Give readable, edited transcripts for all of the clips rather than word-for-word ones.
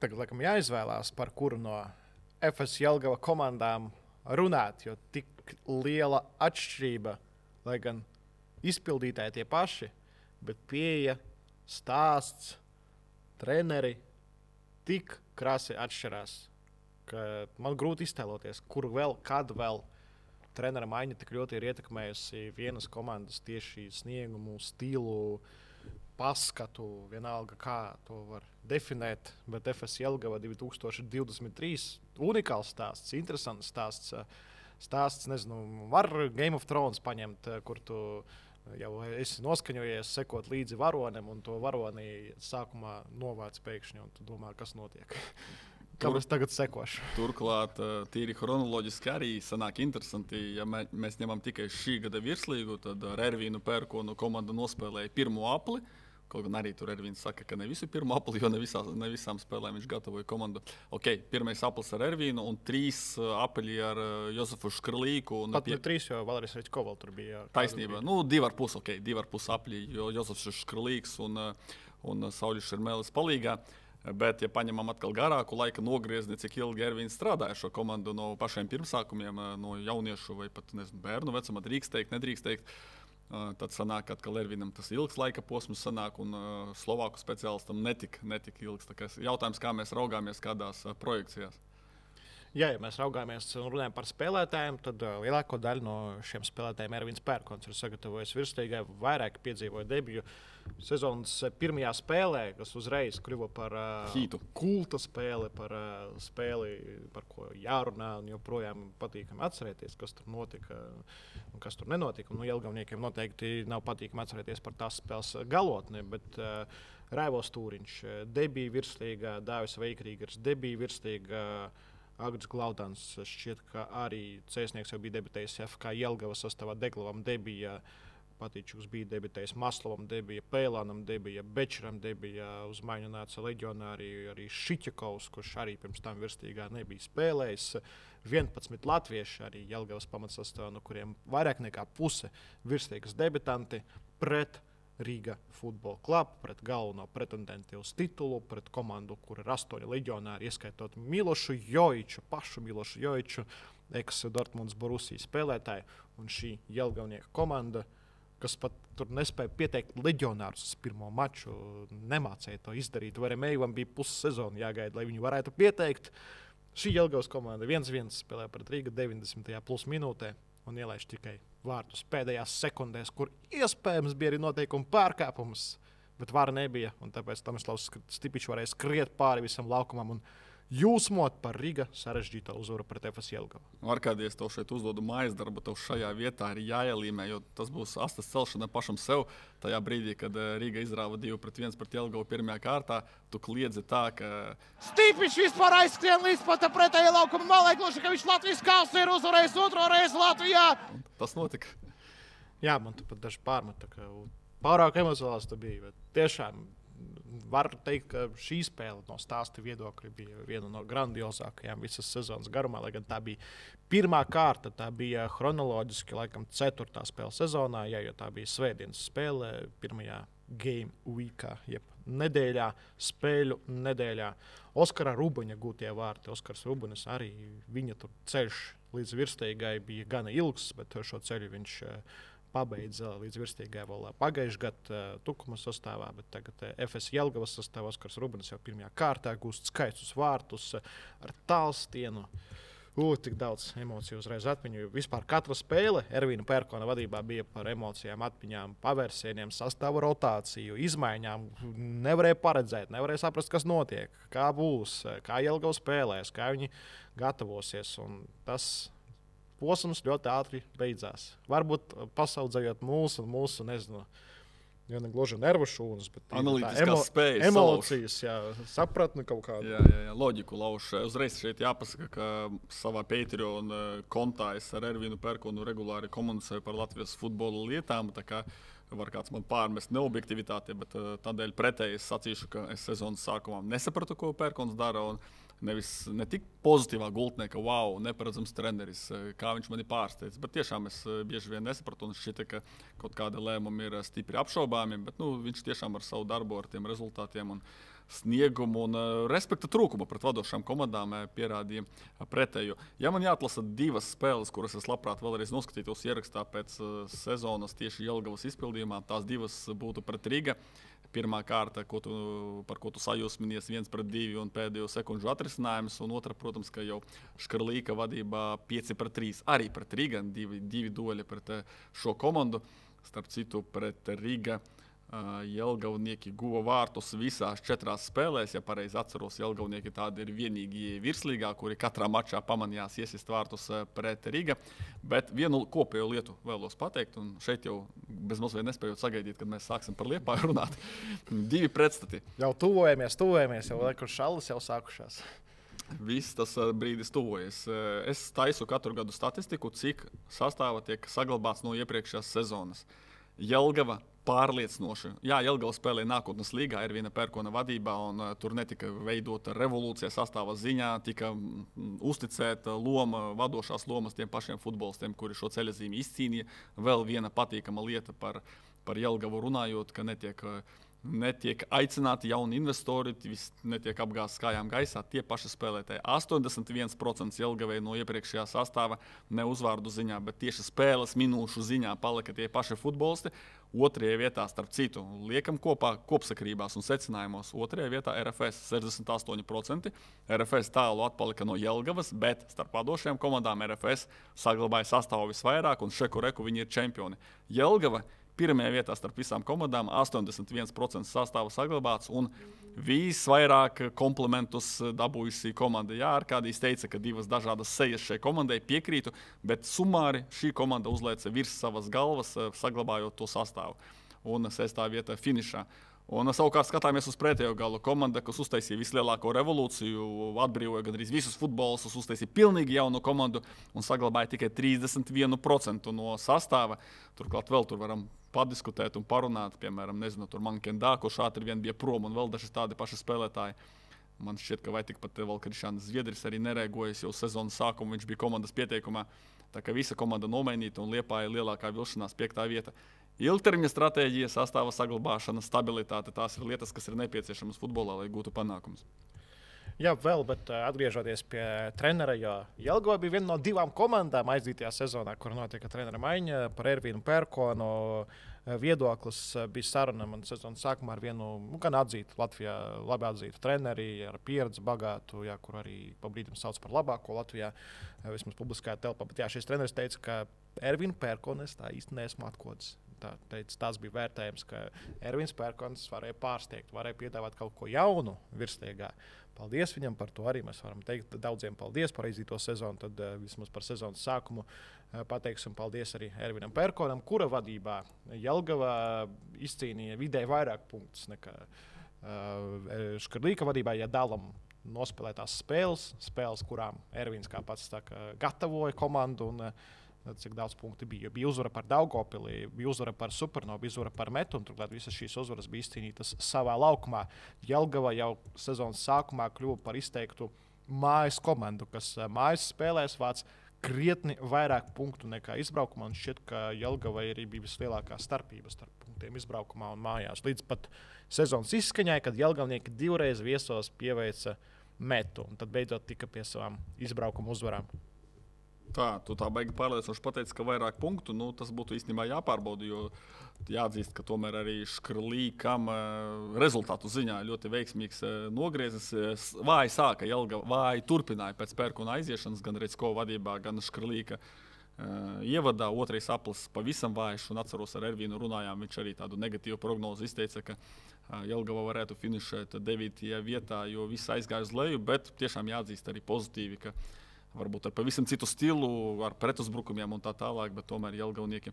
tagad laikam jāizvēlās, par kuru no FS Jelgava komandām runāt, jo tik liela atšķirība, lai gan izpildītāji tie paši, bet pieeja, stāsts, treneri tik krasi atšķirās, ka man grūti iztēloties, kur vēl, kad vēl trenera maiņa tik ļoti ir ietekmējusi vienas komandas tieši sniegumu, stilu, paskatu, vienalga, kā to var definēt. Bet FS Jelgava 2023 unikāls stāsts, interesants stāsts. Stāsts, nezinu, var Game of Thrones paņemt, kur tu jau esi noskaņojies, sekot līdzi varonim, un to varoni sākumā novāc pēkšņi, un tu domā, kas notiek. Kam es tagad sekošu? Turklāt, tīri chronoloģiski arī sanāk interesanti, ja mēs ņemam tikai šī gada virslīgu, tad ar Ervīnu Pērkonu komanda nospēlēja pirmo apli. Kaut gan arī tur Ervīns saka, ka ne visu pirmo apli, jo ne visām spēlēm viņš gatavoja komandu. Pirmais aplis ar Ervīnu un 3 apli ar Jozefu Škrlīku. Pat 3, jo Valerijs Reķkovs tur bija. Taisnība. 2,5 apli, jo Jozefs Škrlīks un Sauļis Šermēlis palīgā. Bet, ja paņemam atkal garāku laika nogriezni, cik ilgi Ervīns strādāja šo komandu no pašiem pirmsākumiem, no jauniešu vai pat bērnu vecuma, drīkst teikt, nedrīkst teikt, tad sanāk, ka atkal Ervīnam tas ilgs laika posms sanāk un Slovāku speciālistam netik ilgs. Tā kā jautājums, kā mēs raugāmies kādās projekcijās. Ja mēs raugāmies un runājam par spēlētājiem, tad lielāko daļu no šiem spēlētājiem Ervīns Pērkons ir sagatavojis virslīgai, vairāk piedzīvoja debiju sezonas pirmajā spēlē, kas uzreiz kļuva par kulta spēli, par spēli, par ko jārunā un joprojām patīkami atcerēties, kas tur notika un kas tur nenotika. Jelgavniekiem noteikti nav patīkami atcerēties par tās spēles galotni, bet Raivos Tūriņš debija virslīgā, Dāvis Veikrīgers debija virslīgā, Agris Glaudans šķiet, ka arī Cēsnieks jau bija debitējis FK Jelgava sastāvā, Deglavam debija, Patīčuks bija debitējis, Maslovam debija, Pēlānam debija, Bečeram debija, uz maiņu nāca leģionāri arī Šiķakovs, kurš arī pirms tam virslīgā nebija spēlējis. 11 latvieši arī Jelgavas pamatsastāvā, no kuriem vairāk nekā puse virslīgas debitanti pret Rīga Football Club, pret galveno pretendentu uz titulu, pret komandu, kur ir 8 leģionāri, ieskaitot Milošu Jojiču, pašu Milošu Jojiču, ex-Dortmunds Borusija spēlētāju, un šī jelgavnieka komanda, kas pat tur nespēja pieteikt leģionārus uz pirmo maču, nemācēja to izdarīt. Varemējuvam bija pussezona jāgaida, lai viņi varētu pieteikt. Šī Jelgavas komanda 1-1 spēlē pret Rīga 90. plus minūtē un ielaiž tikai vārtus pēdējās sekundēs, kur iespējams bija arī noteikuma pārkāpums, bet vara nebija, un tāpēc Tomislavs Stipičs varēja skriet pāri visam laukumam un jūsmot par Rīga sarežģīto uzvaru pret FS Jelgavu. Arkādijs, tev šeit uzdodu mājas darbu, tev šajā vietā ir jāielīmē, jo tas būs astes celšana pašam sev. Tajā brīdī, kad Rīga izrāva 2-1 pret Jelgavu pirmajā kārtā, tu kliedzi tā, ka Stipičs vispār aizskrien līdz pat pretējai laukuma malai, gluži, ka viņš Latvijas kausu ir uzvarējis 2. reizi Latvijā. Un tas notika. Jā, man tu pat daži pārmeta, ka pārāk emocionāls tu bija, bet tiešām var teikt, ka šī spēle no stāsta viedokļa bija viena no grandiozākajām visas sezonas garumā, lai gan tā bija pirmā kārta, tā bija chronoloģiski laikam 4. spēle sezonā, jo tā bija svētdienas spēle pirmajā game weekā, jeb nedēļā, spēļu nedēļā. Oskara Rubuņa gūtie vārti, Oskars Rubunis arī, viņa tur ceļš līdz virslīgai bija gana ilgs, bet šo ceļu viņš pabeidza līdz virstīgai vēl pagājušajā gadā Tukuma sastāvā, bet tagad FS Jelgavas sastāvā Oskars Rubunis jau pirmajā kārtā gūst skaistus vārtus ar tālstienu. Tik daudz emociju uzreiz atmiņu. Vispār katra spēle Ervīna Pērkona vadībā bija par emocijām, atmiņām, pavērsieniem, sastāvu rotāciju, izmaiņām. Nevarēja paredzēt, nevarēja saprast, kas notiek, kā būs, kā Jelgava spēlēs, kā viņi gatavosies. Un tas posms ļoti ātri beidzās. Varbūt pasaudzējot mūsu nezinu, jo ne gluži nervu šūnas, bet analītiskās spējas, emocijas, sapratni kaut kādu. Jā, loģiku lauž. Uzreiz šeit jāpasaka, ka savā Patreon kontā es ar Ervīnu Pērkonu regulāri komunicēju par Latvijas futbola lietām, tā kā var kāds man pārmest neobjektivitāti, bet tādēļ pretēji es sacīšu, ka es sezonas sākumā nesapratu, ko Pērkons dara, un ne tik pozitīvā gultnē, ka wow, neparedzams treneris, kā viņš mani pārsteidz, bet tiešām es bieži vien nesapratu, un šķita, ka kaut kāda lēmuma ir stipri apšaubāmi, bet viņš tiešām ar savu darbu, ar tiem rezultātiem un sniegumu un respekta trūkumu pret vadošām komandām pierādīja pretējo. Ja man jāatlasa 2 spēles, kuras es labprāt vēlreiz noskatītos ierakstā pēc sezonas tieši Jelgavas izpildījumā, tās 2 būtu pret Riga. Pirmā kārta, par ko tu sajūsminies, 1-2 un pēdējo sekundžu atrisinājums, un otra, protams, ka jau Škarlīka vadībā 5-3. Arī pret Riga, 2 dueli pret šo komandu. Starp citu, pret Riga Jelgavnieki guva vārtus visās 4 spēlēs. Ja pareizi atceros, Jelgavnieki tādi ir vienīgie virslīgā, kuri katrā mačā pamanījās iesist vārtus pret Riga. Bet vienu kopējo lietu vēlos pateikt, un šeit jau bezmazliet nespējot sagaidīt, kad mēs sāksim par Liepāju runāt. 2 pretstati. Jau tuvojamies, jau laikam šallas jau sākušās. Viss tas brīdis tuvojas. Es taisu katru gadu statistiku, cik sastāva tiek saglabāts no iepriekšējās sezonas. Jelgava pārliecinoši. Jā, Jelgava spēlēja nākotnes līgā, Ervīna Pērkona vadībā, un tur netika veidota revolūcija sastāva ziņā, tika uzticēta loma, vadošās lomas tiem pašiem futbolistiem, kuri šo ceļazīmi izcīnīja. Vēl viena patīkama lieta par Jelgavu runājot, ka netiek aicināti jauni investori, viss netiek apgāzts kājām gaisā. Tie paši spēlētāji. 81% Jelgavai no iepriekšējā sastāva ne uzvārdu ziņā, bet tieši spēles minūšu ziņā palika tie paši futbolisti. 2. vietā, starp citu, liekam kopā kopsakarībās un secinājumos. 2. vietā RFS 68%. RFS tālu atpalika no Jelgavas, bet starp vadošajām komandām RFS saglabāja sastāvu visvairāk, un šeku reku viņi ir čempioni. Jelgava 1. vietā starp visām komandām, 81% sastāva saglabāts, un visvairāk komplimentus dabūjusi komanda. Jā, Arkādijs teica, ka 2 dažādas sejas šai komandai, piekrītu, bet sumāri šī komanda uzlēca virs savas galvas, saglabājot to sastāvu. Un 6. vietā finišā. Un savukārt skatāmies uz pretējo galu. Komanda, kas uztaisīja vislielāko revolūciju, atbrīvoja gandrīz visus futbolistus, uztaisīja pilnīgi jaunu komandu un saglabāja tikai 31% no sastāva. Turklāt vēl tur varam padiskutēt un parunāt, piemēram, tur Mankendā, kurš ātri vien bija prom, un vēl daži tādi paši spēlētāji. Man šķiet, ka vai tikpat vēl Krišāns Zviedris arī nerēgojas jau sezonas sākumu, viņš bija komandas pieteikumā. Tā kā visa komanda nomainīta un Liepāja lielākā vilšanās 5. vieta. Ilgtermiņa stratēģija, sastāva saglabāšana, stabilitāte, tās ir lietas, kas ir nepieciešamas futbolā, lai gūtu panākumus. Jā, vēl, bet atgriežoties pie trenera, jo Jelgava bija viena no 2 komandām aizdītajā sezonā, kur notika trenera maiņa par Ervīnu Pērkonu. Viedoklis bija saruna man sezonas sākumā ar vienu gan atzītu Latvijā, labi atzītu treneri, ar pieredzi bagātu, jā, kur arī pa brīdim sauc par labāko Latvijā, vismaz publiskajā telpā. Bet jā, šis treneris teica, ka Ervīnu Pērkonu es tā īsti neesmu atkods. Tas bija vērtējums, ka Ervīns Pērkons varēja pārsteigt, varēja piedāvāt kaut ko jaunu virsliegā. Paldies viņam par to arī. Mēs varam teikt daudziem paldies par aizdīto sezonu. Tad vismaz par sezonas sākumu pateiksim paldies arī Ervīnam Pērkonam, kura vadībā Jelgava izcīnīja vidēji vairāk punktus nekā Škarlīka vadībā, ja dalam nospēlētās spēles, kurām Ervīns, kā pats saka, gatavoja komandu. Cik daudz punktu bija. Bija uzvara par Daugavpili, bija uzvara par Supernovu, bija uzvara par Metu, un turklāt visas šīs uzvaras bija izcīnītas savā laukumā. Jelgava jau sezonas sākumā kļuva par izteiktu mājas komandu, kas mājas spēlēs vāc krietni vairāk punktu nekā izbraukumā. Un šķiet, ka Jelgavai arī bija vislielākā starpība starp punktiem izbraukumā un mājās. Līdz pat sezonas izskaņai, kad Jelgavnieki 2 reizes viesos pieveica Metu, un tad beidzot tika pie savām izbraukuma uzvarām. Tu tā baigi pārliecinoši pateici, ka vairāk punktu, tas būtu īstenībā jāpārbauda, jo jāatzīst, ka tomēr arī Škarlīkam rezultātu ziņā ļoti veiksmīgs nogriezis. Vāji sāka Jelgava, vāji turpināja pēc Pērkona aiziešanas, gan Recko vadībā, gan Škarlīka ievadā. 2. aplis pavisam vājš, un atceros ar Ervīnu runājām, viņš arī tādu negatīvu prognozi izteica, ka Jelgava varētu finišēt 9. vietā, jo viss aizgāja uz leju, bet tiešām jāatzīst arī pozitīvi, ka varbūt ar pavisam citu stilu, ar pretuzbrukumiem un tā tālāk, bet tomēr Jelgavnieki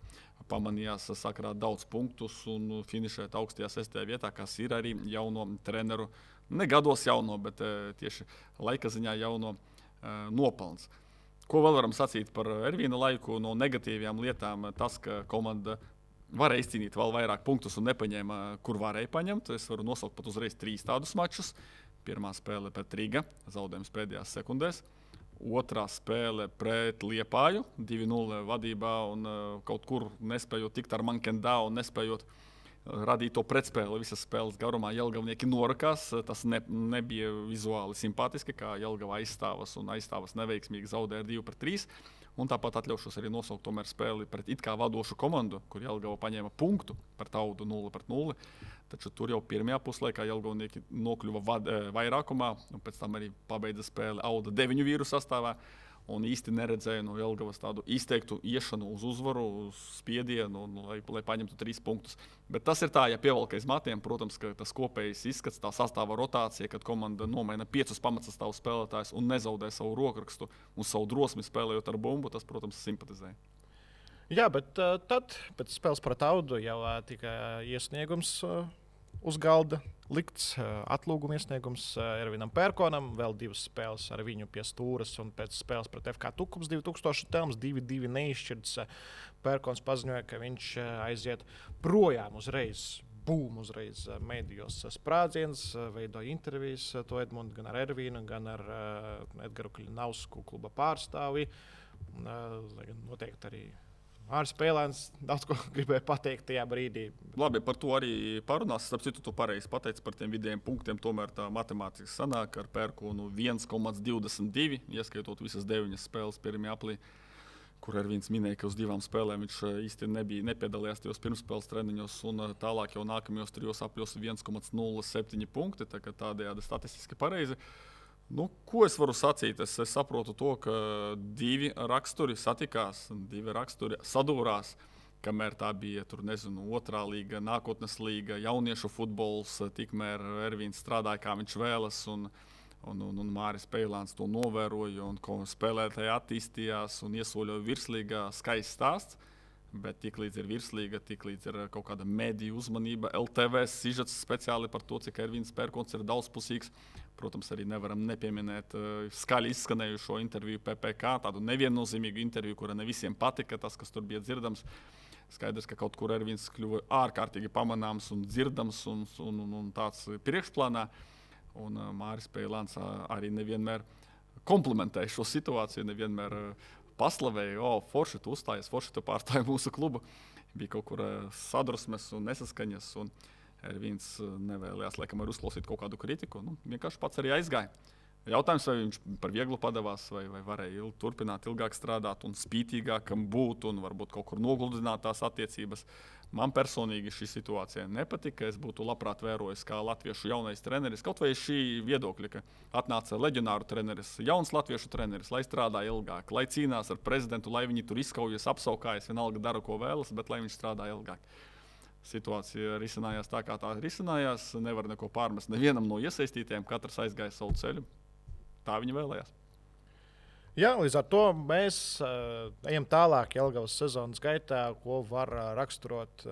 pamanījās sakrāt daudz punktus un finišēt augstajā 6. vietā, kas ir arī jauno treneru, ne gados jauno, bet tieši laika ziņā jauno nopelns. Ko vēl varam sacīt par Ervīna laiku? No negatīvajām lietām tas, ka komanda varēja izcīnīt vēl vairāk punktus un nepaņēma, kur varēja paņemt. Es varu nosaukt pat uzreiz 3 tādus mačus. Pirmā spēle pret Riga, zaudējums pēdējās sekundēs. 2. spēle pret Liepāju, 2-0 vadībā un kaut kur nespējot tikt ar Mankendā un nespējot radīja to pretspēli visas spēles garumā. Jelgavnieki norakās, tas nebija vizuāli simpātiski, kā Jelgava aizstāvas neveiksmīgi zaudēja 2-3. Un tāpat atļaušos arī nosaukt tomēr spēli pret it kā vadošu komandu, kur Jelgava paņēma punktu par Audu 0-0. Taču tur jau pirmajā puslaikā Jelgavnieki nokļuva vairākumā, un pēc tam arī pabeidza spēli Auda 9 vīru sastāvā. Un īsti neredzēju no Jelgavas tādu izteiktu iešanu uz uzvaru, uz spiedienu, lai paņemtu 3 punktus. Bet tas ir tā, ja pievelk aiz matiem, protams, ka tas kopējais izskats, tā sastāva rotācija, kad komanda nomaina 5 pamatsastāvu spēlētājus un nezaudē savu rokrakstu un savu drosmi spēlējot ar bumbu, tas, protams, simpatizē. Jā, bet tad pēc spēles pret Audu jau tika iesniegums uz galda likts, atlūguma iesniegums Ervinam Pērkonam, vēl 2 spēles ar viņu pie stūres, un pēc spēles pret FK Tukums 2000 telms 2-2 neizšķirts. Pērkons paziņoja, ka viņš aiziet projām uzreiz. Uzreiz medijos sprādziens, veidoja intervijas to Edmundu gan ar Ervīnu, gan ar Edgaru Kļinausku kluba pārstāvi. Noteikti arī Māris Pēlēns daudz ko gribēja pateikt tajā brīdī. Labi, par to arī parunās. Starp citu, tu pareizi pateici par tiem vidējiem punktiem. Tomēr tā matemātiski sanāk ar Pērkonu 1,22, ieskaitot visas 9 spēles pirmajā aplī, kur Ervīns minēja, ka uz 2 spēlēm viņš īsti nepiedalījās tajos pirmspēles treniņos, un tālāk jau nākamajos 3 apļos 1,07 punkti. Tādējādi statistiski pareizi. Ko es varu sacīt? Es saprotu to, ka 2 raksturi satikās, 2 raksturi sadūrās, kamēr tā bija otrā līga, nākotnes līga, jauniešu futbols, tikmēr Ervīns strādāja, kā viņš vēlas, un Māris Pēlēns to novēroja, un spēlētāji attīstījās un iesoļoja virslīgā. Skaists stāsts, bet tiklīdz ir virslīga, tiklīdz ir kaut kāda mediju uzmanība, LTV sižets speciāli par to, cik Ervīns Pērkons ir daudzpusīgs. Protams, arī nevaram nepieminēt skaļi izskanējušo interviju PPK, tādu neviennozīmīgu interviju, kura ne visiem patika, tas, kas tur bija dzirdams. Skaidrs, ka kaut kur Ervīns kļuva ārkārtīgi pamanāms un dzirdams un tāds priekšplānā. Un Māris Pēlēns arī nevienmēr komplementēja šo situāciju, nevienmēr paslavēja, forši tu uzstājies, forši tu pārstāji mūsu klubu. Bija kaut kur sadrusmes un nesaskaņas. Un Ervīns nevēlējās, laikam, arī uzklausīt kaut kādu kritiku. Vienkārši pats arī aizgāja. Jautājums, vai viņš par vieglu padevās, vai varēja turpināt ilgāk strādāt un spītīgākam būt un varbūt kaut kur nogludināt tās attiecības. Man personīgi šī situācija nepatika. Es būtu labprāt vērojis, kā latviešu jaunais treneris, kaut vai šī viedokļa, ka atnāca leģionāru treneris, jauns latviešu treneris, lai strādā ilgāk, lai cīnās ar prezidentu, lai viņi tur izkaujas, apsaukājas, vienalga dara, ko vēlas, bet lai viņš strādā ilgāk. Situācija risinājās tā, kā tā risinājās. Nevar neko pārmest nevienam no iesaistītiem. Katrs aizgāja savu ceļu. Tā viņi vēlējās. Jā, līdz ar to mēs ejam tālāk Jelgavas sezonas gaitā, ko var raksturot.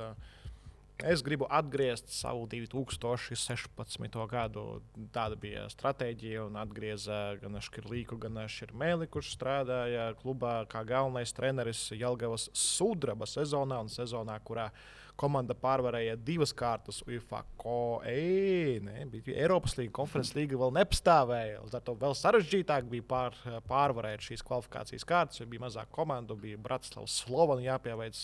Es gribu atgriezt savu 2016. gadu. Tāda bija stratēģija, un atgrieza gan Škirlīku, gan Širmēli, kurš strādāja klubā kā galvenais treneris Jelgavas sudraba sezonā, un sezonā, kurā komanda pārvarēja 2 kārtas UEFA Eiropas līga, konferences līga vēl nepastāvēja. Līdz ar to vēl sarežģītāk bija pārvarēt šīs kvalifikācijas kārtas, jo bija mazāk komandu, bija Bratislavas Slovana jāpieveic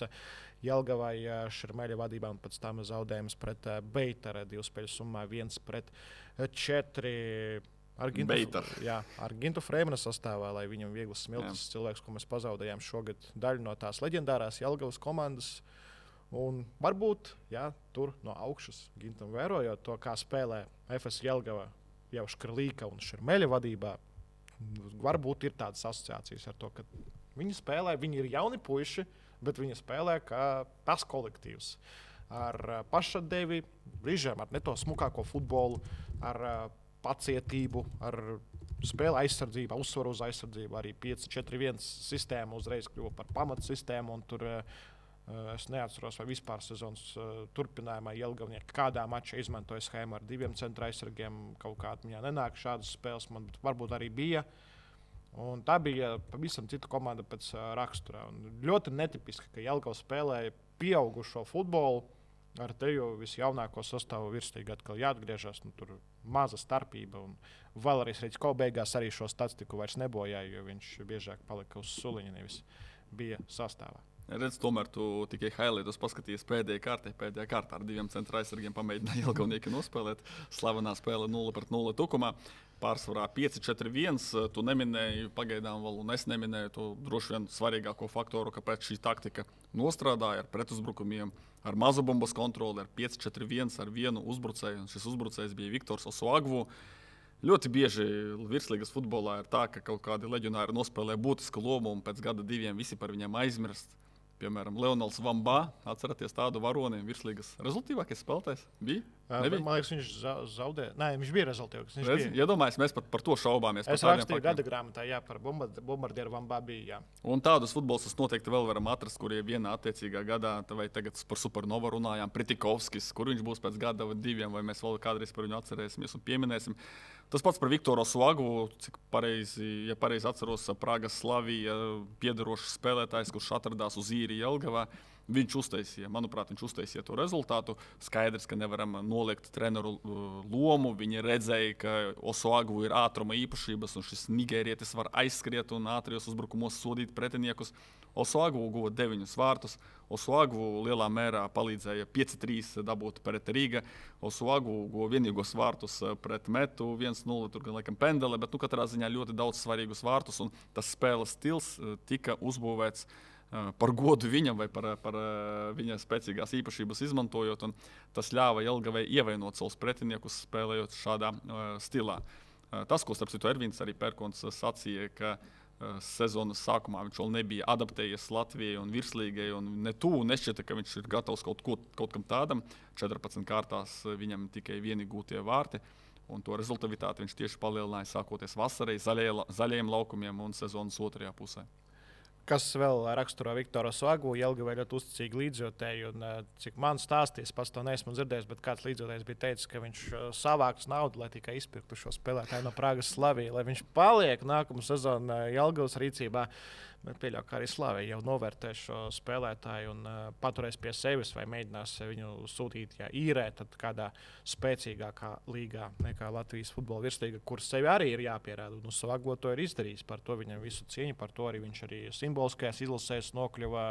Jelgavai Širmēļa vadībā, un pēc tam zaudējums pret Beitaru 2 spēļu summā 1-4. Ar Gintu Freimana sastāvā, lai viņam vieglas smiltis cilvēks, ko mēs pazaudējām šogad daļu no tās leģendārās Jelgavas komandas. Un varbūt tur no augšas Gintam vērojot to, kā spēlē FS Jelgava jau Škrlīka un Širmēļa vadībā, varbūt ir tādas asociācijas ar to, ka viņi spēlē, viņi ir jauni puiši, bet viņi spēlē kā tas kolektīvs. Ar pašatdevi, brīžiem ar ne to smukāko futbolu, ar pacietību, ar spēli aizsardzību, uzsvaru uz aizsardzību. Arī 5-4-1 sistēma uzreiz kļuva par pamatsistēmu, un tur es neatceros, vai vispār sezonas turpinājumā Jelgavnieki kādā mačā izmantoja schēmu ar 2 centra aizsargiem. Kaut kādā viņā nenāk šādas spēles, man varbūt arī bija. Un tā bija pavisam cita komanda pēc rakstura. Un ļoti netipiski, ka Jelgava spēlēja pieaugušo futbolu ar teju visjaunāko sastāvu virslīgā. Atkal jāatgriežas, tur maza starpība. Un Valērijas Reģisko beigās arī šo statistiku vairs nebojāja, jo viņš biežāk palika uz suliņa, nevis bija sastāvā. Redz, tomēr tu tikai highlightus paskatījies pēdējā kārtā ar 2 centra aizsargiem pamēģināja Jelgavnieki nospēlēt. Slavenā spēle 0-0 tukumā. Pārsvarā 5-4-1. Tu neminēji pagaidām vēl, un es neminēju to droši vien svarīgāko faktoru, kāpēc šī taktika nostrādāja ar pretuzbrukumiem, ar mazu bumbas kontroli, ar 5-4-1, ar vienu uzbrucēju. Un šis uzbrucējs bija Viktors Osuagvu. Ļoti bieži virslīgas futbolā ir tā, ka kaut kādi leģionāri nospēlē būtisku lomu un pēc gada 2 visi par viņiem aizmirst. Piemēram, Leonels Vambā, atceraties tādu varoni, virslīgas rezultātīvākais spēlētājs bija? Man liekas, viņš zaudēja. Nē, viņš bija rezultātīvs. Iedomājies, mēs pat par to šaubāmies. Es rakstīju gada grāmatā, jā, par bombardieru Vambā bija. Jā. Un tādus futbolistus noteikti vēl varam atrast, kuriem vienā attiecīgā gadā, vai tagad par Supernovu runājām, Pritikovskis, kur viņš būs pēc gada vai 2, vai mēs vēl kādreiz par viņu atcerēsimies un pieminēsim. Tas pats par Viktoru Osuagvu, cik pareizi atceros, Pragas Slavija piederošs spēlētājs, kurš atradās uz īri Jelgavā. Viņš uztaisīja to rezultātu. Skaidrs, ka nevaram noliegt treneru lomu. Viņi redzēja, ka Osuagvu ir ātruma īpašības, un šis nigērietis var aizskriet un ātrijos uzbrukumos sodīt pretiniekus. Osuagvu guva 9 vārtus. Osuagvu lielā mērā palīdzēja 5-3 dabūt pret Rīga. Osuagvu guva vienīgos vārtus pret Metu 1-0, tur gan laikam pendele, bet katrā ziņā ļoti daudz svarīgus vārtus, un tas spēles stils tika uzbūvēts par godu viņam vai par viņa spēcīgās īpašības izmantojot, un tas ļāva Jelgavai ievainot savus pretiniekus, spēlējot šādā stilā. Tas, ko starp citu Ervīns arī Pērkons sacīja, ka sezonas sākumā viņš vēl nebija adaptējies Latvijai un virslīgai, un nešķita, ka viņš ir gatavs kaut kam tādam. 14 kārtās viņam tikai vieni gūtie vārti, un to rezultatīvitāti viņš tieši palielināja sākoties vasarai, zaļajiem laukumiem un sezonas otrajā pusē. Kas vēl raksturo Viktoru Osuagvu, Jelgavai ļoti uzticīgi līdzjūtēji, un cik man stāstīs, pats to neesmu dzirdējis, bet kāds līdzjūtējs bija teicis, ka viņš savāks naudu, lai tikai izpirktu šo spēlētāju no Pragas Slavija, lai viņš paliek nākamu sezonu Jelgavas rīcībā. Bet pieļauju, ka arī Slavija jau novērtē šo spēlētāju un paturēs pie sevis vai mēģinās viņu sūtīt, ja īrē, tad kādā spēcīgākā līgā nekā Latvijas futbola virslīga, kur sevi arī ir jāpierāda. Un Osuagvu to ir izdarījis, par to viņam visu cieņu, par to arī viņš arī simboliskajās izlasēs nokļuva,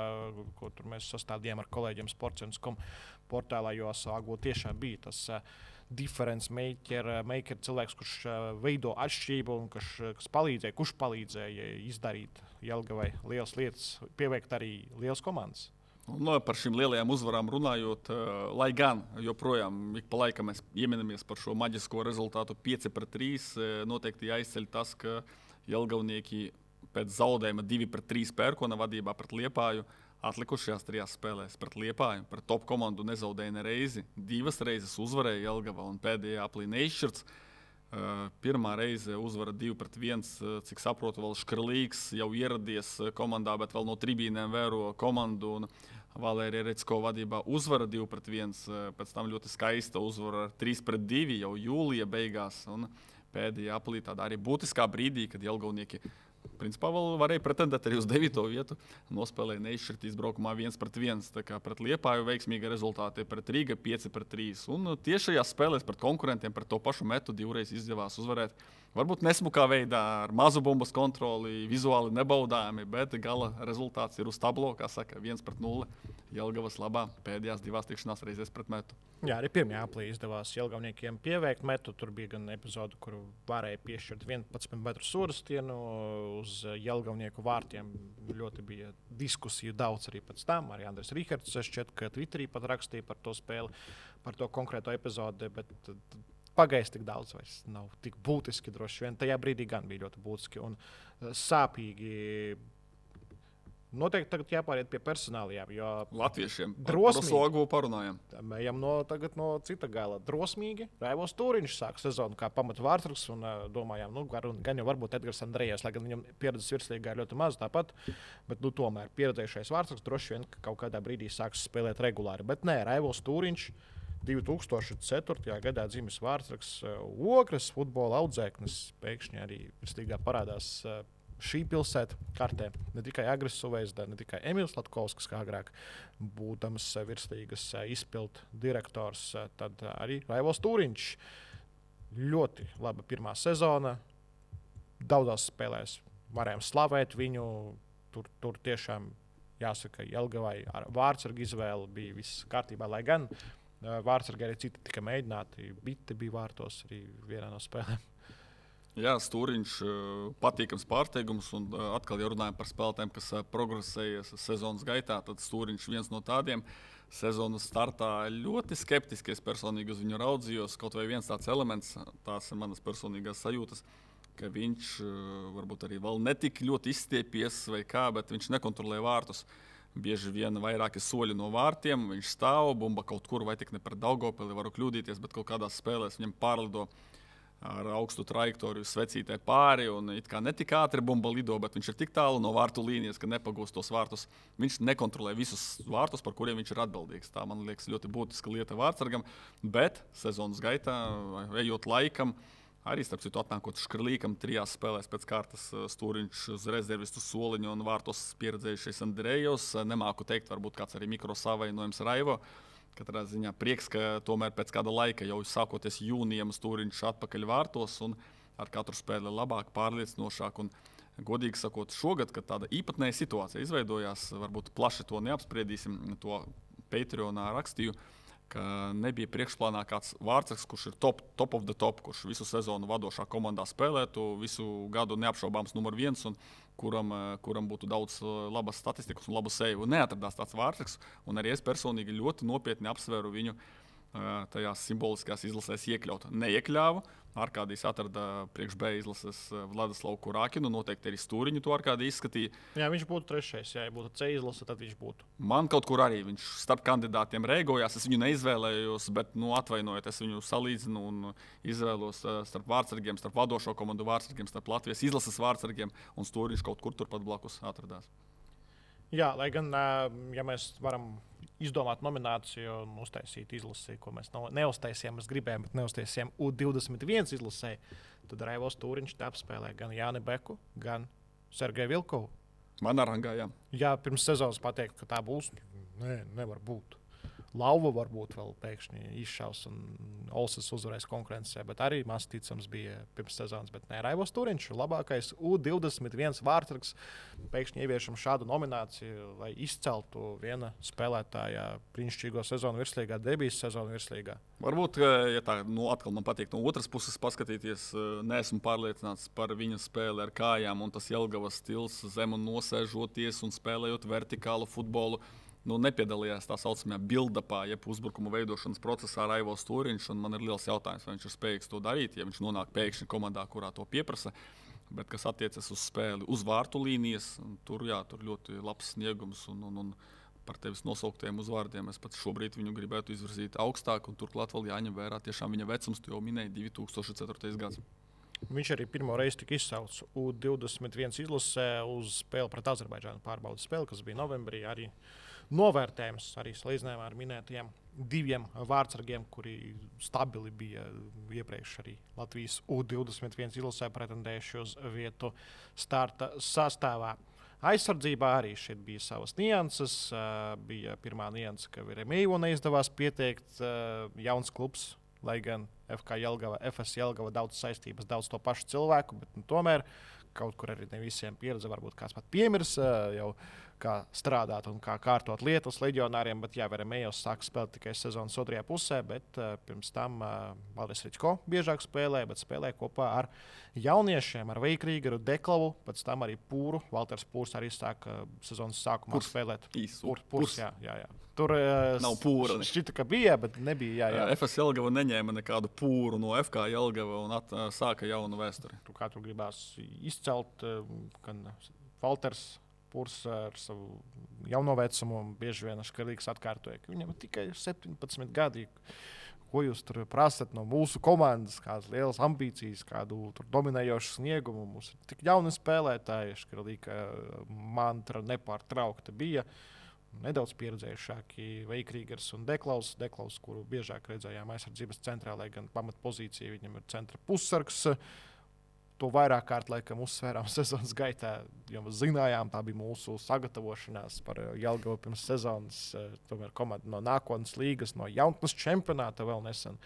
ko tur mēs sastādījām ar kolēģiem Sports.com portālā, jo Osuagvu tiešām bija tas difference maker cilvēks, kurš veido atšķirību un kurš palīdzēja izdarīt Jelgavai lielas lietas, pieveikt arī lielas komandas. Par šīm lielajām uzvarām runājot, lai gan joprojām ik pa laikam mēs ieminamies par šo maģisko rezultātu 5-3, noteikti jāizceļ tas, ka Jelgavnieki pēc zaudējuma 2-3 Pērkona vadībā pret Liepāju atlikušajās 3 spēlēs pret Liepāju, pret top komandu nezaudēja nereizi. 2 reizes uzvarēja Jelgava un pēdējā aplī neizšķirts. Pirmā reize uzvara 2-1, cik saprotu, vēl Škrlīgs jau ieradies komandā, bet vēl no tribīnēm vēro komandu. Un Valērija Recko vadībā uzvara 2-1, pēc tam ļoti skaista uzvara 3-2 jau jūlija beigās. Un pēdējā aplī tādā arī būtiskā brīdī, kad Jelgavnieki principā vēl varēja pretendēt arī uz 9. vietu. Nospēlēja neizšķirt izbraukumā 1-1. Tā kā pret Liepāju veiksmīga rezultāti, pret Rīga 5-3. Un tieši šajās spēlēs pret konkurentiem, pret to pašu Metu 2 reizes izdevās uzvarēt. Varbūt nesmukā veidā, ar mazu bumbas kontroli, vizuāli nebaudāmi, bet gala rezultāts ir uz tablo, kā saka, 1-0 Jelgavas labā pēdējās 2 tikšanās reizēs pret Metu. Jā, arī pirmajā aplī izdevās Jelgavniekiem pieveikt Metu. Tur bija gan epizode, kur varēja piešķirt 11 metru sorastienu uz Jelgavnieku vārtiem. Ļoti bija diskusiju daudz arī pēc tam. Arī Andris Rihards šķiet, ka Twitterī pat rakstīja par to spēli, par to konkrēto epizodi, bet pagājis tik daudz vairs nav tik būtiski droši vien. Tajā brīdī gan bija ļoti būtiski un sāpīgi. Noteikti tagad jāpāriet pie personālajām, jo latviešiem drosmīgi. Osuagvu parunājam. Ejam tagad no cita gala. Drosmīgi. Raivos Tūriņš sāk sezonu kā pamata vārdsargs un domājām, gan jau varbūt Edgars Andrejevs, lai gan viņam pieredzes virslīgā ir ļoti maz tāpat, bet tomēr pieredzējušais vārdsargs droši vien kaut kādā brīdī sāks spēlēt regulāri. Bet nē, Raivos Tūriņš 2004. gadā dzimis vārdsargs, Ogres futbola audzēknis, pēkšņi arī virslīgā parādās šī pilsēta kartē. Ne tikai Agris Suveizda, ne tikai Emīls Latkovskis, kā agrāk būdams virslīgas izpildu direktors, tad arī Raivos Tūriņš. Ļoti laba pirmā sezona. Daudzās spēlēs varējām slavēt viņu. Tur tiešām jāsaka, Jelgavai ar vārdsargu izvēli bija viss kārtībā, lai gan vārdsargi arī citi tika mēģināti. Bitte bija vārtos arī vienā no spēlēm. Jā, Stūriņš patīkams pārsteigums, un atkal, ja runājam par spēlētājiem, kas progresējas sezonas gaitā, tad Stūriņš viens no tādiem. Sezonas startā ļoti skeptiski es personīgi uz viņu raudzījos. Kaut vai viens tāds elements, tās ir manas personīgās sajūtas, ka viņš varbūt arī vēl netik ļoti izstiepies vai kā, bet viņš nekontrolē vārtus. Bieži vien vairāki soļi no vārtiem, viņš stāv, bumba kaut kur, vai tik ne par Daugavpili, varu kļūdīties, bet kaut kādās spēlēs viņam pārlido ar augstu trajektoriju svecītē pāri, un it kā netik ātri bumba lido, bet viņš ir tik tālu no vārtu līnijas, ka nepagūst tos vārtus. Viņš nekontrolē visus vārtus, par kuriem viņš ir atbildīgs. Tā, man liekas, ļoti būtiska lieta vārtsargam, bet sezonas gaitā, ejot laikam, arī starp citu atnākot Škrlīkam 3 spēlēs pēc kārtas Stūriņš uz rezervistu soliņu un vārtos pieredzējušies Andrejos. Nemāku teikt, varbūt kāds arī mikrosavainojums Raivo. Katrā ziņā prieks, ka tomēr pēc kāda laika, jau sākoties jūnijam, Stūriņš atpakaļ vārtos un ar katru spēli labāk, pārliecinošāk. Un, godīgi sakot, šogad, kad tāda īpatnēja situācija izveidojās, varbūt plaši to neapspriedīsim, to Patreonā rakstīju, ka nebija priekšplānā kāds vārdsargs, kurš ir top of the top, kurš visu sezonu vadošā komandā spēlētu, visu gadu neapšaubāms numur 1 un kuram būtu daudz labas statistikas un labu seju. Neatradās tāds vārdsargs, un arī es personīgi ļoti nopietni apsvēru viņu tajās simboliskās izlasēs iekļaut. Neiekļāvu. Arkādijs atrada priekš B izlases Vladislavu Kurākinu, noteikti arī Stūriņu to Arkādija izskatīja. Jā, viņš būtu trešais, ja būtu C izlase, tad viņš būtu. Man kaut kur arī viņš starp kandidātiem rēgojās, es viņu neizvēlējos, bet, atvainojiet, es viņu salīdzinu un izvēlos starp vārdsargiem, starp vadošo komandu vārdsargiem, starp Latvijas izlases vārdsargiem, un Stūriņš kaut kur turpat blakus atradās. Jā, lai gan, ja mēs varam izdomāt nomināciju un uztaisīt izlasi, ko mēs neuztaisījām, mēs gribējām, bet neuztaisījām U21 izlasē, tad Raivos Stūriņš te apspēlē gan Jāni Beku, gan Sergeju Vilkovu. Man arangā, jā. Jā, pirms sezonas pateikt, ka tā būs, nevar būt. Lauva varbūt vēl pēkšņi izšaus un Olsas uzvarēs konkurencē, bet arī maz ticams bija pirms sezonas. Bet Raivos Stūriņš ir labākais U21 vārdsargs. Pēkšņi ieviešam šādu nomināciju, lai izceltu viena spēlētāja brīnišķīgo sezonu virslīgā, debijas sezonu virslīgā. Varbūt, ja tā atkal man patīk no otras puses paskatīties, neesmu pārliecināts par viņa spēli ar kājām, un tas Jelgavas stils zem un nosēžoties un spēlējot vertikālu futbolu. Nepiedalījās tā saucamajā build-upā, jeb uzbrukuma veidošanas procesā Raivos Stūriņš. Man ir liels jautājums, vai viņš ir spējīgs to darīt, ja viņš nonāk pēkšņi komandā, kurā to pieprasa. Bet kas attiecas uz spēli uz vārtu līnijas, tur ļoti labs sniegums. Un par tevis nosauktiem uzvārdiem es pat šobrīd viņu gribētu izvirzīt augstāk. Turklāt vēl jāņem vērā tiešām viņa vecums, tu jau minēji 2004. gads. Viņš arī pirmo reizi tika izsaukts U21 izlasē uz spēli pret Azerbaidžānu pārbaudas spēli, kas bija novembrī. Arī novērtējums arī salīdzinājumā ar minētajiem 2 vārdsargiem, kuri stabili bija iepriekš arī Latvijas U21 izlasē pretendējuši uz vietu starta sastāvā. Aizsardzībā arī šeit bija savas nianses. Bija pirmā nianse, ka Veremēju neizdevās pieteikt jauns klubs, lai gan FS Jelgava daudz saistības, daudz to pašu cilvēku, bet tomēr kaut kur arī ne visiem pieredze, varbūt kāds pat piemirs jau kā strādāt un kā kārtot lietas leģionāriem, bet jā, Veremējos sāk spēlēt tikai sezonas otrajā pusē, bet pirms tam Valdis Ričko biežāk spēlēja, bet spēlēja kopā ar jauniešiem, ar Veikrīgaru, Deklavu, pēc tam arī Pūru. Valters Pūrs arī sāka sezonas sākumā spēlēt. Pūrs, jā. Tur nav pūra. Šķita, ka bija, bet nebija. Jā. FS Jelgava neņēma nekādu pūru no FK Jelgava un sāka jaunu vēsturi. Kā tur gribās izcelt, gan Valters Pūrs ar savu jauno vecumu bieži vien Škarlīgs atkārtoja, ka viņam tikai 17 gadi. Ko jūs tur prasat no mūsu komandas, kādas lielas ambīcijas, kādu dominējošu sniegumu? Mums ir tik jauni spēlētāji, Škarlīga mantra nepārtraukta bija. Nedaudz pieredzējušāki Veikrīgers un Deklaus, kuru biežāk redzējām aizsardzības centrā, lai gan pamatpozīcija viņam ir centra pussargs. To vairāk kārt laikam uzsvērām sezonas gaitā, jo mēs zinājām, tā bija mūsu sagatavošanās par Jelgavu pirms sezonas. Tomēr komanda no nākotnes līgas, no jaunatnes čempionāta vēl nesen.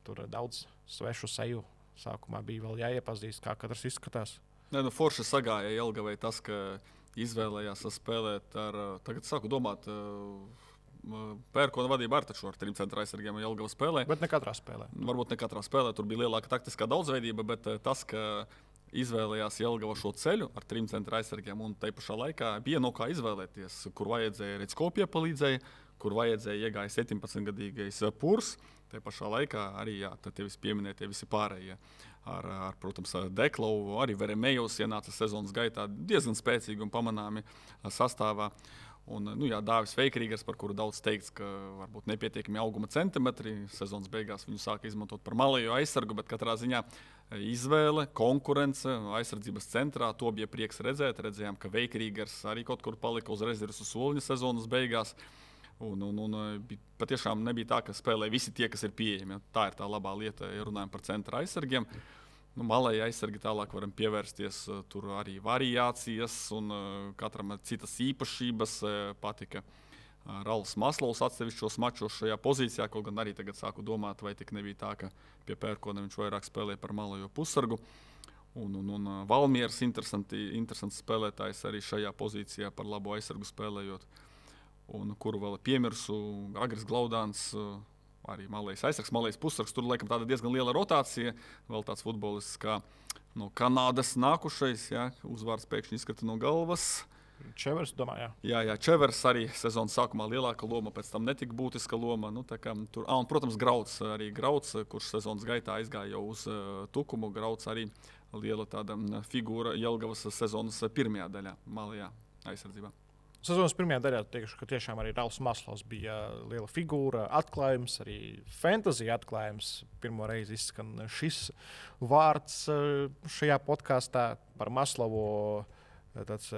Tur daudz svešu seju sākumā bija vēl jāiepazīst, kā katrs izskatās. Forši sagāja Jelgavai tas, ka izvēlējās spēlēt ar, tagad sāku domāt, Pērkona vadība ar 3 centra aizsargiem Jelgava spēlē. Bet ne katrā spēlē. Varbūt ne katrā spēlē, tur bija lielāka taktiskā daudzveidība, bet tas, ka izvēlējās Jelgava šo ceļu ar 3 centra aizsargiem un tai pašā laikā bija no kā izvēlēties, kur vajadzēja Redsko piepalīdzēja, kur vajadzēja iegāja 17-gadīgais Purs. Te pašā laikā arī tie visi pieminētie visi pārējie. Protams, Deklau, arī Veremejos ienāca sezonas gaitā diezgan spēcīgi un pamanāmi sastāvā. Un, Dāvis Veikrīgers, par kuru daudz teikts, ka varbūt nepietiekami auguma centimetri. Sezonas beigās viņu sāka izmantot par malējo aizsargu, bet katrā ziņā izvēle, konkurence aizsardzības centrā. To bija prieks redzēt. Redzējām, ka Veikrīgers arī kaut kur palika uz rezerves soliņa sezonas beigās. Un patiešām nebija tā, ka spēlē visi tie, kas ir pieejami. Tā ir tā labā lieta, ja runājam par centra aizsargiem. Malēji aizsargi tālāk varam pievērsties, tur arī variācijas un katram citas īpašības. Patika Ralfs Maslovs atsevišķos mačos šajā pozīcijā, kaut gan arī tagad sāku domāt, vai tik nebija tā, ka pie Pērkona viņš vairāk spēlēja par malējo pussargu. Un Valmieras interesants spēlētājs arī šajā pozīcijā par labo aizsargu spēlējot. Un kuru vēl piemirsu, Agris Glaudāns, arī malējs aizsargs, malējs pussargs. Tur laikam tāda diezgan liela rotācija. Vēl tāds futbolists kā no Kanādas nākušais, uzvārds pēkšņi izkrita no galvas. Čevers, domāju, jā. Čevers arī sezonas sākumā lielāka loma, pēc tam netika būtiska loma. Un, protams, Grauds, kurš sezonas gaitā aizgāja jau uz Tukumu. Grauds arī liela tāda figūra Jelgavas sezonas pirmajā daļā, malējā aizsardzībā. Sezonas pirmajā daļā teikšu, ka tiešām arī Ralfs Maslovs bija liela figūra, atklājums, arī fantasy atklājums. Pirmo reizi izskan šis vārds šajā podkāstā par Maslovu. Tāds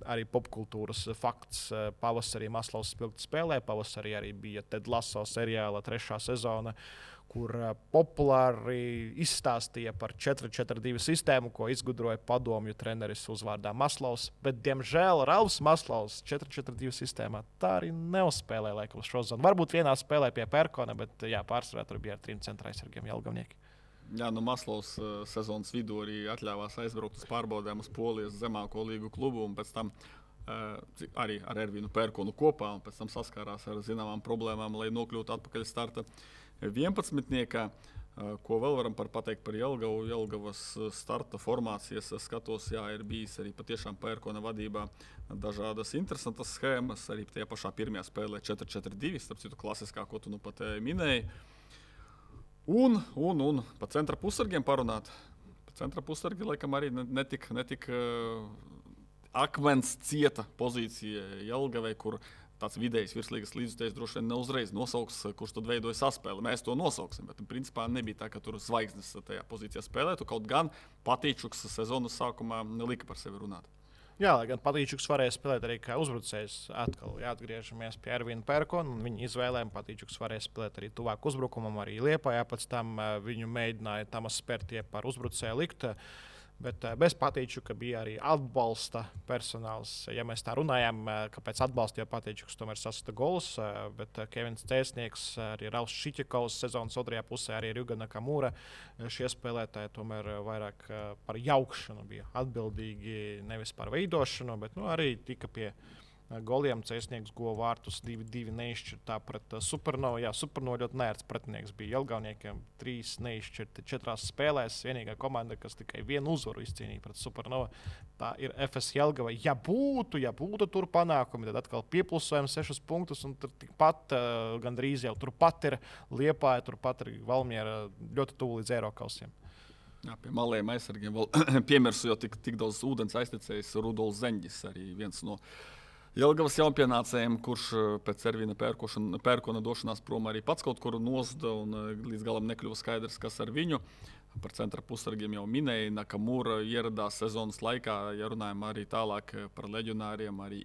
arī popkultūras fakts. Pavasarī Maslovs spilgti spēlē, pavasarī arī bija Ted Lasso seriāla 3. sezona, kur populāri izstāstīja par 4-4-2 sistēmu, ko izgudroja padomju treneris uzvārdā Maslovs. Bet, diemžēl, Ralfs Maslovs 4-4-2 sistēmā tā arī neuzspēlēja laikam šo zonu. Varbūt vienā spēlē pie Pērkona, bet pārsvarā tur bija ar 3 centra aizsargiem Jelgavnieki. Jā, Maslovs sezonas vidū arī atļāvās aizbraukt uz pārbaudēm uz Polijas zemāko līgu klubu un pēc tam arī ar Ervinu Pērkonu kopā un pēc tam saskārās ar zināmām problēmām, lai nokļūtu atpakaļ starta 11. Ko vēl varam pateikt par Jelgavu? Jelgavas starta formācijas skatos, ir bijis arī patiešām Pērkona vadībā dažādas interesantas schēmas, arī tajā pašā pirmajā spēlē 4-4-2, starp citu klasiskā, ko tu nu pat minēji. Un pa centra pussargiem parunāt. Pa centra pussargi laikam arī netik akmens cieta pozīcija Jelgavai, kur tāds vidējs virslīgas līdzutējs droši vien neuzreiz nosauks, kurš tad veidoja saspēli. Mēs to nosauksim, bet principā nebija tā, ka tur zvaigznes tajā pozīcijā spēlētu. Kaut gan Patīčuks sezonas sākumā lika par sevi runāt. Jā, lai gan Patīčuks varēja spēlēt arī kā uzbrucējs. Atkal atgriežamies pie Ervina Pērkona un viņa izvēlēm. Patīčuks varēja spēlēt arī tuvāk uzbrukumam, arī Liepājā. Pēc tam viņu mēģināja Tamas Spērtie par uzbrucēju likt. Bet bez Patīčuka bija arī atbalsta personāls. Ja mēs tā runājām, kāpēc atbalstīja Patīčuks, tomēr sasita gols. Bet Kevins Cēsnieks, arī Ralfs Šiķikovs sezonas otrajā pusē, arī Rjuga Nakamura. Šie spēlētāji tomēr vairāk par jaukšanu bija atbildīgi, nevis par veidošanu, bet arī tika pie goliem. Cēsnieks guva vārtus 2-2 neizšķirtā pret Supernovu. Jā, Supernovu ļoti nērts pretinieks bija Jelgavniekiem. 3 neizšķirti 4 spēlēs. Vienīgā komanda, kas tikai vienu uzvaru izcīnīja pret Supernovu, tā ir FS Jelgava. Ja būtu tur panākumi, tad atkal pieplusojam 6 punktus, un tur tikpat gandrīz jau turpat ir Liepāja, turpat ir Valmiera, ļoti tuvu līdz Eirokausiem. Jā, pie malējiem aizsargiem vēl piemirsu, jo tik daudz ūdens aiztecējis Rudolfs Zeņģis, arī viens no Jelgavas jaunpienācējiem, kurš pēc Ervina Pērkona došanās prom arī pats kaut kur nozuda un līdz galam nekļuva skaidrs, kas ar viņu. Par centra pussargiem jau minēja, Nakamura ieradās sezonas laikā, ja runājam arī tālāk par leģionāriem, arī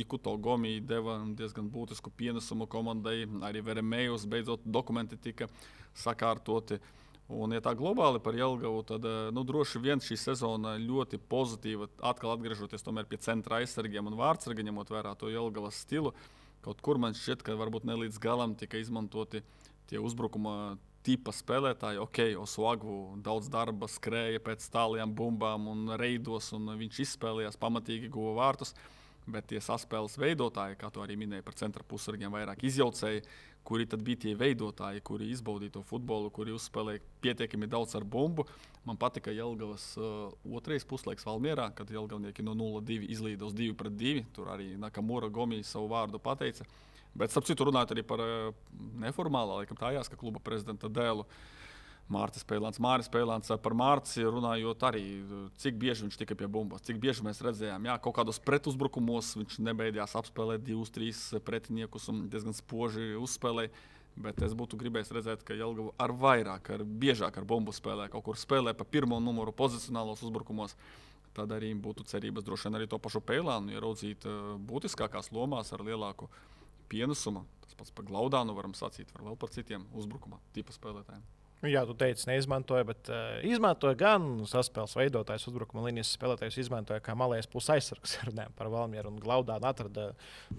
Ikuto Gomi deva diezgan būtisku pienesumu komandai, arī Veremejos beidzot dokumenti tika sakārtoti. Un, ja tā globāli par Jelgavu, tad droši vien šī sezona ļoti pozitīva, atkal atgriežoties tomēr pie centra aizsargiem un vārdsarga, ņemot vērā to Jelgavas stilu. Kaut kur man šķiet, ka varbūt ne līdz galam tika izmantoti tie uzbrukuma tipa spēlētāji. Osuagu daudz darba skrēja pēc tālajām bumbām un reidos, un viņš izspēlējās pamatīgi, guva vārtus. Bet tie saspēles veidotāji, kā to arī minēja par centra pussargiem, vairāk izjaucēji, kuri tad bija tie veidotāji, kuri izbaudīja to futbolu, kuri uzspēlēja pietiekami daudz ar bumbu. Man patika Jelgavas otrais puslaiks Valmierā, kad jelgavnieki no 0-2 izlīda uz 2-2. Tur arī Nakamura Gomi savu vārdu pateica. Bet, starp citu, runājot arī par neformālā, laikam tā jāska kluba prezidenta dēlu, Māris Pēlāns par Mārci runājot arī, cik bieži viņš tika pie bumbas, cik bieži mēs redzējām, kaut kādos pretuzbrukumos viņš nebeidījās apspēlēt 2-3 pretiniekus un diezgan spoži uzspēlēja, bet es būtu gribējis redzēt, ka Jelgava ar vairāk, biežāk ar bumbu spēlē, kaut kur spēlē pa pirmo numuru pozicionālos uzbrukumos, tad arī būtu cerības droši vien arī to pašu Pēlānu ieraudzīt būtiskākās lomās ar lielāku pienesumu. Tas pats par Glaudānu varam sacīt, var vēl par citiem uzbrukuma tipa spēlētājiem. Jā, tu teici, neizmantoja, bet izmantoja gan saspēles veidotājs, uzbrukuma līnijas spēlētājs, izmantoja kā malējais pusaizsargs. Runājam par Valmieru un Glaudānu atrada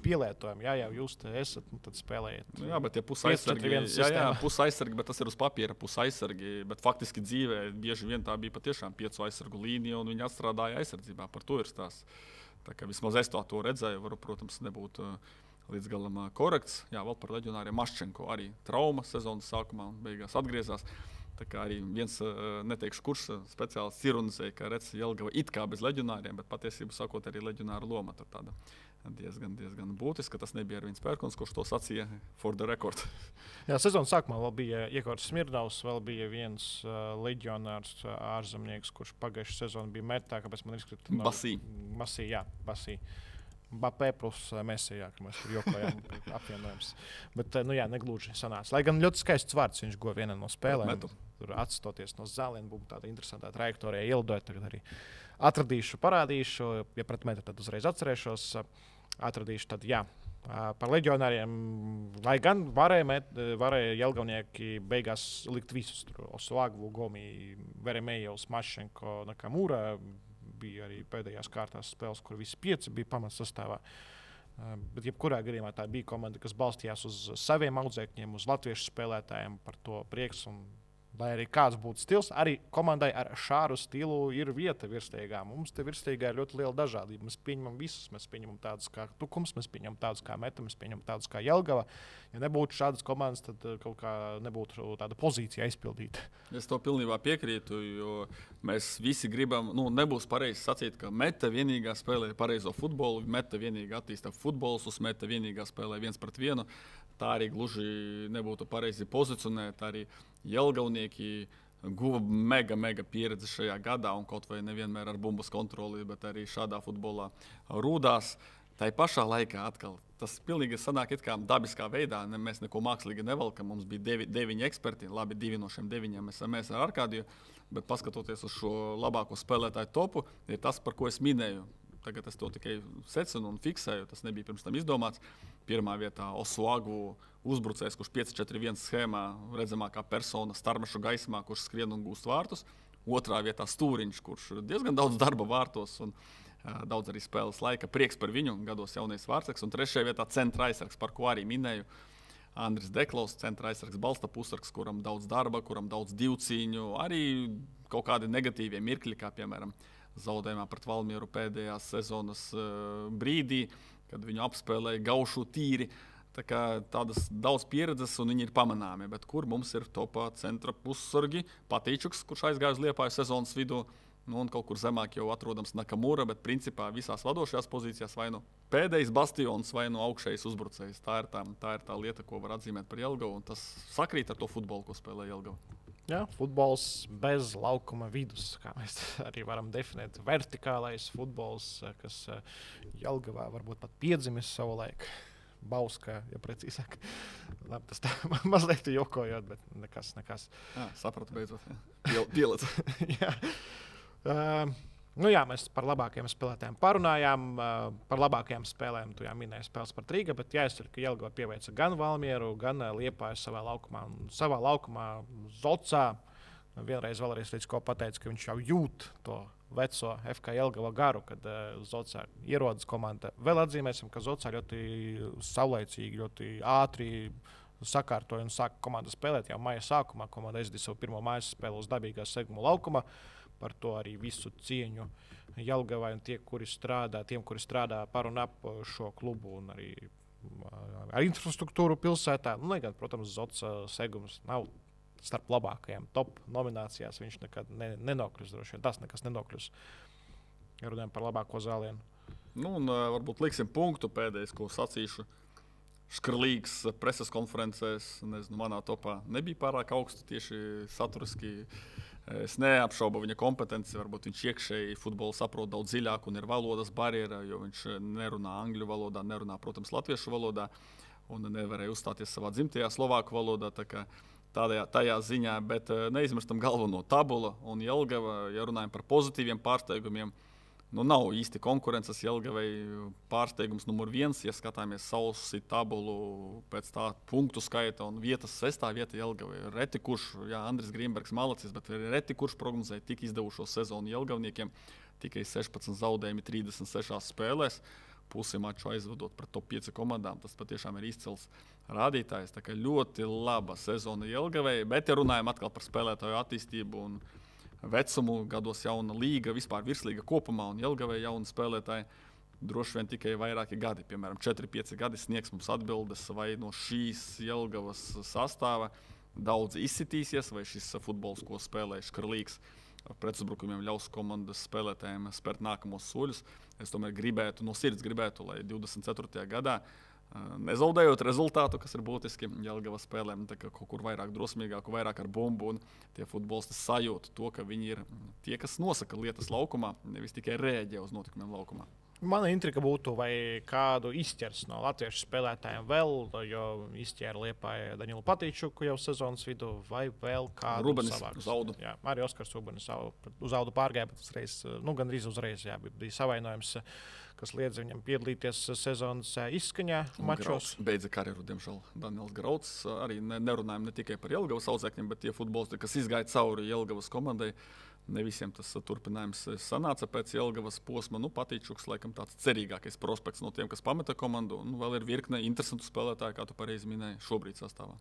pielietojumu. Jā, jūs te esat, tad spēlējiet. Jā, bet tie pusaizsargi, bet tas ir uz papīra pusaizsargi, bet faktiski dzīvē bieži vien tā bija patiešām 5 aizsargu līnija un viņi atstrādāja aizsardzībā. Par to ir stāsts. Tā kā vismaz es to redzēju, varu, protams, nebūt līdz galam korekts. Jā, vēl par leģionāriem Maščenko arī trauma sezonas sākumā un beigās atgriezās. Tā kā arī viens, neteikšu kurš speciālists ironizēja, ka redz Jelgava it kā bez leģionāriem, bet patiesībā sakot arī leģionāra loma tur tāda diezgan būtiska. Tas nebija Ervīns Pērkons, kurš to sacīja for the record. Jā, sezonas sākumā vēl bija Iekārts Smirdavs, vēl bija viens leģionārs ārzemnieks, kurš pagājušajā sezonā bija metā, kāpēc man izkrita no... Basī. Bapē plus Mesijā, ka mēs tur jokojām apvienojums. Bet, negluži sanāca. Lai gan ļoti skaists vārds viņš guva vienā no spēlēm. Tur atstoties no zāliena, būtu tāda interesanta trajektorija ielidojot. Tagad arī atradīšu, parādīšu. Ja pret metru, tad uzreiz atcerēšos. Atradīšu, tad jā. Par leģionāriem, lai gan varēja jelgavnieki beigās likt visus. Osuagu, Gomi, Veremejevs, Maščenko, Nakamura. Bija arī pēdējās kārtās spēles, kur visi 5 bija pamatsastāvā. Bet jebkurā gadījumā tā bija komanda, kas balstījās uz saviem audzēkņiem, uz latviešu spēlētājiem, par to prieks. Un, lai arī kāds būtu stils, arī komandai ar šādu stilu ir vieta virsliegā. Mums te virsliegā ir ļoti liela dažādība. Mēs pieņemam visus. Mēs pieņemam tādus kā Tukums, mēs pieņemam tādus kā Meta, mēs pieņemam tādus kā Jelgava. Ja nebūtu šādas komandas, tad kaut kā nebūtu tāda pozīcija aizpildīta. Es to pilnībā piekrītu, jo mēs visi gribam, nebūs pareizi sacīt, ka Meta vienīgā spēlē pareizo futbolu, Meta vienīgā attīsta futbolus, Meta vienīgā spēlē 1-1. Tā arī gluži nebūtu pareizi pozicionēt. Arī jelgavnieki guva mega pieredzi šajā gadā un kaut vai nevienmēr ar bumbas kontroli, bet arī šādā futbolā rūdās. Tā pašā laikā atkal tas pilnīgi sanāk it kā dabiskā veidā. Mēs neko mākslīgi nevelkam. Mums bija 9 eksperti. Labi, 2 no šiem 9 mēs ar Arkādiju. Bet paskatoties uz šo labāko spēlētāju topu, ir tas, par ko es minēju. Tagad es to tikai secinu un fiksēju. Tas nebija pirms tam izdomāts. Pirmā vietā Osuagu uzbrucējs, kurš 5-4-1 schēmā redzamākā persona starmešu gaismā, kurš skrien un gūst vārtus. Otrā vietā Stūriņš, kurš diezgan daudz darba vārtos un daudz arī spēles laika. Prieks par viņu, gados jaunais vārtsargs. Un trešajā vietā centra aizsargs, par ko arī minēju. Andris Deklaus, centra aizsargs, balsta pussargs, kuram daudz darba, kuram daudz divcīņu. Arī kaut kādi negatīvie mirkļi, kā piemēram zaudējumā pret Valmieru pēdējās sezonas brīdī, kad viņu apspēlēja gaušu tīri. Tā kā tādas daudz pieredzes un viņi ir pamanāmi, bet kur mums ir topā centra pussargi, Patīčuks, kurš aizgāja uz Liepāju sezonas vidū, un kaut kur zemāk jau atrodams Nakamura, bet principā visās vadošajās pozīcijās vai nu pēdējais bastions vai nu augšējais uzbrucējs. Tā ir tā lieta, ko var atzīmēt par Jelgavu, un tas sakrīt ar to futbolu, ko spēlē Jelgava. Jā, futbols bez laukuma vidus, kā mēs arī varam definēt. Vertikālais futbols, kas Jelgavā varbūt pat piedzimis savu laiku. Bauska, ja precīzāk. Labi, tas tā mazliet jokojot, bet nekas. Jā, sapratu beidzot. Pielec. Jā. Mēs par labākajiem spēlētājiem parunājām. Par labākajām spēlēm tu jau minēji spēles par Rīgu, bet jāizcer, ka Jelgava pieveica gan Valmieru, gan Liepāju savā laukumā. Un savā laukumā Zocā vēlreiz līdz ko pateica, ka viņš jau jūt to veco FK Jelgava garu, kad Zocā ierodas komanda. Vēl atzīmēsim, ka Zocā ļoti saulaicīgi, ļoti ātri sakārtoja un sāka komanda spēlēt jau maija sākumā. Komanda aizdīja savu pirmo mājas spēli uz dabīgā seguma laukuma. Par to arī visu cieņu Jelgavai un tiem, kuri strādā par un ap šo klubu un arī ar infrastruktūru pilsētā. Lai gan, protams, Zots segums nav starp labākajām top nominācijās. Viņš nekad nenokļūs droši vien. Tas nekas nenokļūs. Ja runājam par labāko zālienu. Varbūt liksim punktu pēdējais, ko sacīšu. Škrlīgs preses konferencēs, manā topā nebija pārāk augsts tieši saturiski. Es neapšaubu viņa kompetenci, varbūt viņš iekšēji futbolu saprot daudz dziļāk un ir valodas barjera, jo viņš nerunā angļu valodā, nerunā, protams, latviešu valodā un nevarēja uzstāties savā dzimtajā slovāku valodā. Tajā ziņā, bet neizmirstam galveno tabula un Jelgava, ja runājam par pozitīviem pārsteigumiem. Nav īsti konkurences Jelgavai pārsteigums numur 1, ja skatāmies sausi tabulu pēc tā punktu skaita un vietas 6. vieta Jelgavai. Reti kurš, Andris Grīmbergs malacis, bet reti kurš prognozēja tik izdevušo sezonu Jelgavniekiem. Tikai 16 zaudējumi 36 spēlēs, pusi maču aizvedot pret top 5 komandām. Tas patiešām ir izcils rādītājs. Tā kā ļoti laba sezona Jelgavai, bet ja runājam atkal par spēlētāju attīstību un vecumu, gados jauna līga, vispār virslīga kopumā un Jelgavai jauni spēlētāji, droši vien tikai vairāki gadi, piemēram, 4-5 gadi sniegs mums atbildes, vai no šīs Jelgavas sastāva daudz izsitīsies, vai šis futbols, ko spēlē Škrlīgs, pretuzbrukumiem ļaus komandas spēlētājiem spērt nākamos soļus. Es tomēr no sirds gribētu, lai 24. gadā nezaudējot rezultātu, kas ir būtiski Jelgavas spēlēm, kaut kur vairāk drosmīgāku, vairāk ar bumbu, un tie futbolisti sajūt to, ka viņi ir tie, kas nosaka lietas laukumā, nevis tikai rēģē uz notikumiem laukumā. Mana intriga būtu, vai kādu izķers no latviešu spēlētājiem vēl, jo izķēra Liepāja Daņilu Patīčuku jau sezonas vidū, vai vēl kādu savāks. Zaudu. Jā, arī Oskars Ubenis uz Zaudu pārgāja, bet uzreiz, gandrīz uzreiz, bija savainojums, kas liedz viņam piedalīties sezonas izskaņā mačos. Beidza karjeru, diemžēl, Daniels Grauds. Arī nerunājam ne tikai par Jelgavas audzēkņiem, bet tie futbolisti, kas izgāja cauri Jelgavas komandai. Ne visiem tas turpinājums sanāca pēc Jelgavas posma. Patīčuks, laikam, tāds cerīgākais prospekts no tiem, kas pameta komandu. Vēl ir virkne interesantu spēlētāju, kā tu pareizi minēji, šobrīd sastāvā.